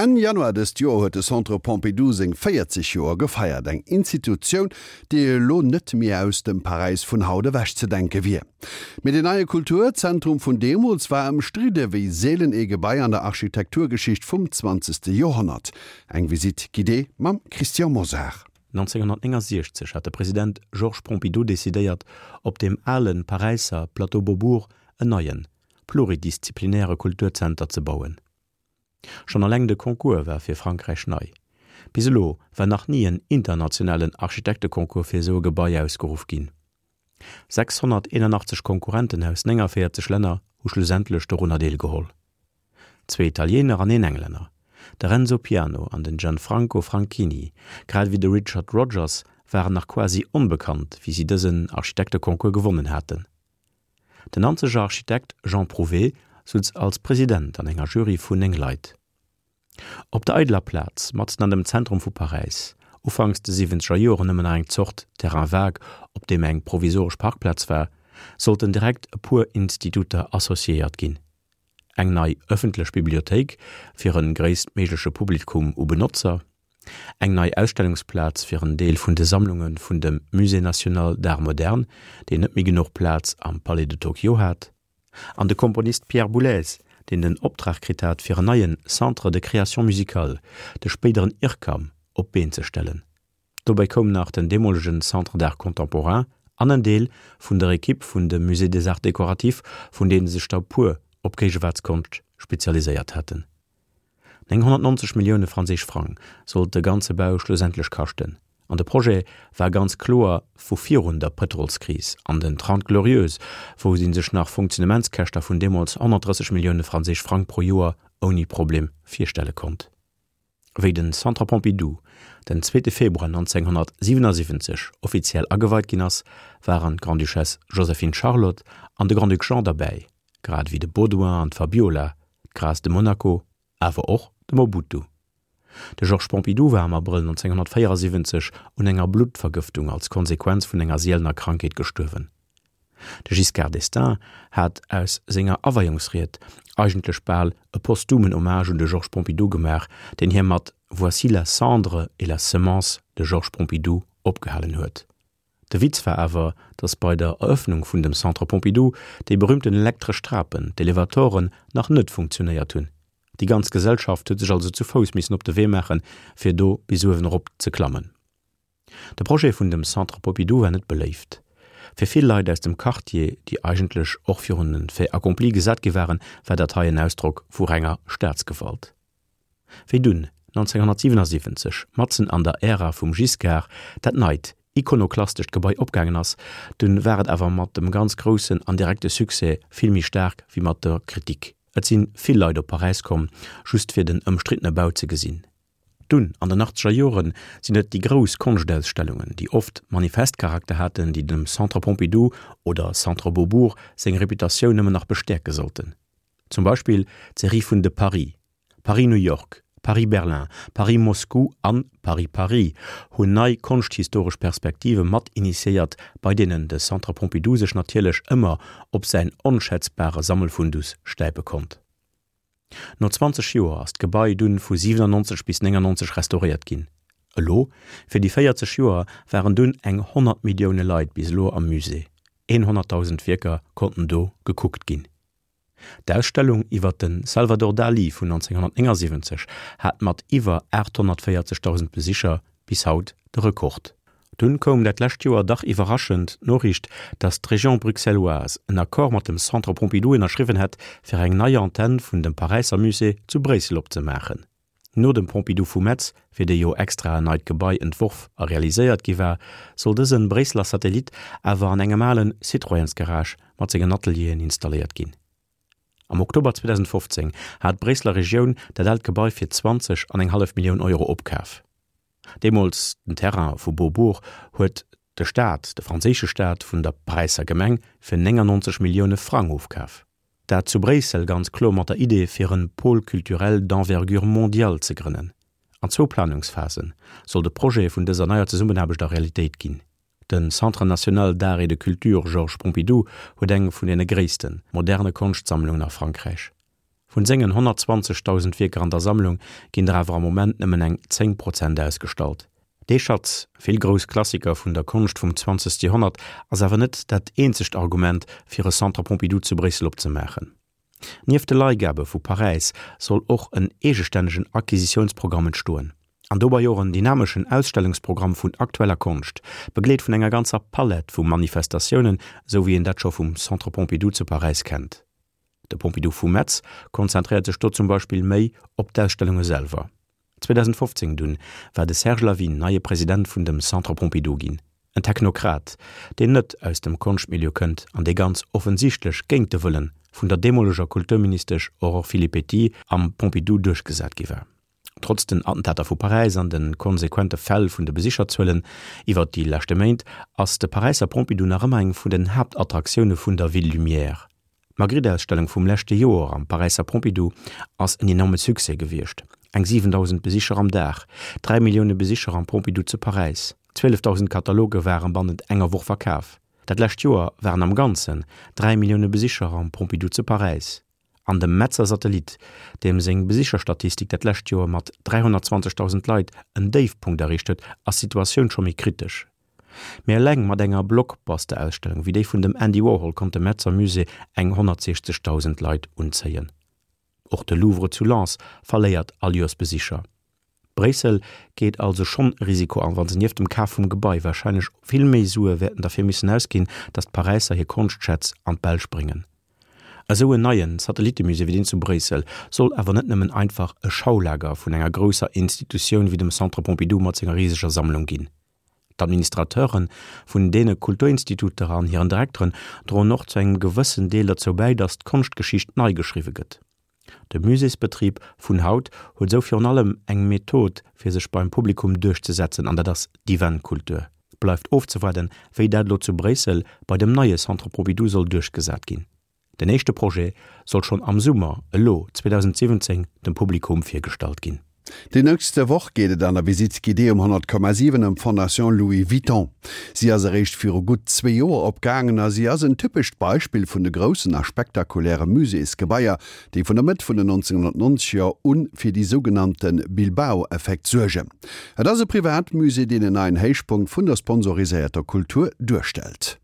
Enn Januar dëst Joer huet de Centre Pompidou seng 40 Joer gefeiert. Eng Institutioun, déi elo net méi aus dem Paräis vun haut ewechzedenke wier. Mee den neie Kulturzentrum vun deemools war ëmstridde wéi seelen ee Gebai an der Architekturgeschicht vum zwanzegste Joerhonnert. Eng Visite guidée mam Christian Mosar. 1969 hat de President Georges Pompidou decidéiert, op deem ale Paräisser Plateau Beaubourg en neien, pluridisziplinäre Kulturzenter ze bauen. Schonn alleng de Concours war fir Frankräich nei. Bis elo war nach ni en internationalen Architekteconcours fir esou e Gebai ausgeruff ginn. 681 Konkurrenten aus 49 Länner hu schlussendlech dorunner deelgeholl. Zwee Italiener an een Englänner, de Renzo Piano an den Gianfranco Franchini, grad ewéi de Richard Rogers waren nach quasi onbekannt, wéi si dësen Architekteconcours gewonnen haten. Den Nanzeger Architekt Jean Prouvé sutz als President an enger Jury vun 9 Leit. Op der eideler Plaz, matzen an dem Zentrum vu Paräis, ufanks de siwwenzeger Joren nëmmen nach eng Zort Terrain vague, op deem eng provisoresch Parkplaz war, sollten direkt e puer Instituter associéiert ginn. Eng nei ëffentlech Bibliothéik fir e gréisstméigleche Publikum u Benotzer, eng nei Ausstellungsplaz fir en Deel vun de Sammlunge vun dem Musée national d'art moderne, deen net méi genuch Plaz am Palais de Tokyo hat, an de Komponist Pierre Boulez, deen den Optrag kritt hat fir en neie Centre de création musicale, de spéideren IRCAM, op d'Been ze stellen. Dobäi koum nach den deemolegen Centre d'art contemporain an en Deel vun der Ekipp vun dem Musée des Arts décoratifs, vun deene sech der e puer op Géigewaartskonscht spezialiséiert haten. 990 Millioune franséisch Frang sollt de ganze Bau schlussendlech kaschten. An de Projet war ganz kloer vu virun der Pëtrolskris an den Trente Glorieuses, wou ee sech nach Funktionementskäschter vun deemools 130 Millioune franséisch Frang pro Joer ouni Problem virstelle konnt. Wéi den Centre Pompidou den zweete Februar 1977 offiziell ageweit ginn ass, waren d'Grande-Duchesse Joséphine-Charlotte an de Grand-Duc Jean derbäi, grad ewéi de Baudouin an d'Fabiola, d'Grâce de Monaco, awer och de Mobutu. De Georges Pompidou war am Abrëll 1974 un enger Bluttvergëftung als Konsequenz vun enger sielener Krankheet gestuerwen. De Giscard d'Estaing hat aus senger Aweiungsried eigentlech bal e posthumen Hommage un de Georges Pompidou gemaach, deen hie mat Voici la cendre et la semence de Georges Pompidou opgehalen huet. De Witz war awer, datt bei der Erëffnung vun dem Centre Pompidou déi berühmten elektresch Trapen, d'Elevatoren, nach net funktionéiert hunn. Déi ganz Gesellschaft huet sech also zu Fouss missen op de Wee maachen, fir do bis uewen erop ze klammen. De Projet vun dem Centre Pompidou war net beléift. Fir vill Leit aus dem Quartier, déi eigentlech och virun e Fait accompli gesat gi waren, war dat hei en Ausdrock vu renger Staatsgewalt. Wéi dunn 1977, matzen an der Ära vum Giscard, dat neit, ikonoklastescht Gebai opgaangen ass, dunn war et awer mat dem ganz groussen an direkte Succès vill méi staark wéi mat der Kritik. Et sinn vill Leit op Paräis komm, just fir den ëmstriddene Bau ze gesinn. Dunn, an den achtzeger Joren, sinn et déi grouss Konschtausstellungen, déi oft Manifestcharakter haten, déi dem Centre Pompidou oder Centre Beaubourg seng Reputatioun nëmmen nach bestäerke sollten. Zum Beispill d'Serie vun de Paris, Paris-New York, Paris-Berlin, Paris-Moscou an Paris-Paris hunn nei konschthistoresch Perspektive mat initiéiert, bei deenen de Centre Pompidou sech natierlech ëmmer op säin onschätzbare Sammelfundus stäipe konnt. No 20 Joer ass d'Gebai dunn vu 97 bis 99 restauréiert ginn. Elo, fir déi 40 Joer, waren dunn eng 100 Millioune Leit bis elo am Musée, 100.000 Wierker konnten do gekuckt ginn. D'Ausstellung iwwer de Salvador Dali vun 1979 hat mat iwwer 840.000 Besicher bis haut de Rekord. Dunn koum dat lescht Joer dach iwwerraschend d'Noriicht, datt d'Région bruxelloise en Accord mat dem Centre Pompidou ënnerschriwwen hätt, fir eng nei Antenn vun dem Paräisser Musée zu Bréissel opzemaachen. No dem Pompidou vu Metz, fir dee jo extra en neit Gebai entworf a realiséiert gi war, soll dëse Bréisseler Satellit awer an engem ale Citroënsgarage mat sengen Atelieren installéiert ginn. Am Oktober 2015 hat d'Bréisseler Regioun dat aalt Gebai fir 20 an eng hallef Millioun Euro opkaf. Deemools den Terrain vu Beaubourg huet de Staat, de franséische Staat, vun der Paräisser Gemeng fir 99 Millioune Frang ofkaf. Dat zu Bréissel ganz kloer mat der Idee fir en Pôle culturel d'envergure mondiale ze grënnen. An zwou Planungsphase soll de Projet vun dëser neier Zesummenaarbecht a Realitéit ginn. De Centre national d'art et de culture Georges Pompidou huet eng vun deene gréisste moderne Konschtsammlungen a Frankräich. Vun sengen 120.000 Wierker an der Sammlung ginn der awer am Moment nëmmen eng 10 Prozent ausgestallt. Dee Schatz, vill grouss Klassiker vun der Konscht vum 20. Joerhonnert, ass awer net dat eenzegt Argument, fir e Centre Pompidou zu Bréissel opzemaachen. Nieft de Leihgabe vu Paräis soll och en eegestännegen Acquisitiounsprogramm entstoen. An dobei och en dynameschen Ausstellungsprogramm vun aktueller Konscht, begleet vun enger ganzer Palett vu Manifestatiounen, esou wéi een dat scho vum Centre Pompidou zu Paräis kennt. De Pompidou vu Metz konzentréiert sech do zum Beispill méi op d'Ausstellunge selwer. 2015 dunn war de Serge Lavigne neie President vun dem Centre Pompidou ginn. En Technokrat, deen net aus dem Konschtmilieu kënnt an dee ganz offensichtlech géint de Wëllen vun der deemoleger Kulturministesch Aurore Filippetti am Pompidou duerchgesat gi war. Trotz den Attentater vu Paräis an de konsequente Fäll vun de Besicherzuelen iwwert déi leschte Méint ass de Paräisser Pompidou nach ëmmer eng vun den Haaptattraktioune vun der Ville Lumière. D'Magritte-Ausstellung vum leschte Joer am Paräisser Pompidou ass en enorme Succès gewiescht, eng 7.000 Besicher am Dag, 3 Millioune Besicher am Pompidou zu Paräis, 12.000 Kataloge ware bannent enger Woch verkaf. Dat lescht Joer waren am Ganzen 3 Millioune Besicher am Pompidou zu Paräis. An dem Metzer Satellit, deem seng Besicherstatistik dat lescht Joer mat 320.000 Leit en Déifpunkt erreecht huet, ass d'Situatioun scho méi kritesch. Mee eleng mat enger Blockbuster-Ausstellung wéi déi vun dem Andy Warhol konnt de Metzer Musée eng 160.000 Leit unzéien. Och de Louvre zu Lens verléiert all Joers Besicher. Bréissel geet also schonn e Risiko an, wa se nieft dem Kaf vum Gebai warscheinlech vill méi Sue wäerten derfir missen ausginn, datt d'Paräisser hir Konschtschätz an d'Belsch bréngen. Esou en neie Satellittemusée wéi deen zu Bréissel soll awer net nëmmen einfach e Schaulager vun enger grousser Institutioun wéi dem Centre Pompidou mat senger riseger Sammlung ginn. D'Administrateure vun deene Kulturinstituter an hiren Direkteren droen och zu engem gewëssen Deel derzou bäi, datt d'Konschtgeschicht nei geschriwwe gëtt. De Muséesbetrib vun haut huet esou virun allem eng Method fir sech beim Publikum duerchzesetzen, an dat ass d'Eventkultur. Bleift ofzewaarden, wéi dat elo zu Bréissel bei dem neie Centre Pompidou soll duerchgesat ginn. Den éischte Projet soll schonn am Summer elo 2017 dem Publikum virgestallt ginn. Déi nächste Woch geet et an der Visite guidée um 100,7 ëm d'Fondation Louis Vuitton. Si ass eréischt viru gutt zwee Joer opgaangen a si ass en typescht Beispill vun de groussen a spektakuläre Muséesgebaier, déi vun der Mëtt vun den 1990er u fir déi sougenannte Bilbao-Effekt suergen. Et ass e Privatmusée, deen en neien Héichpunkt vun der sponsoriséierter Kultur duerstellt.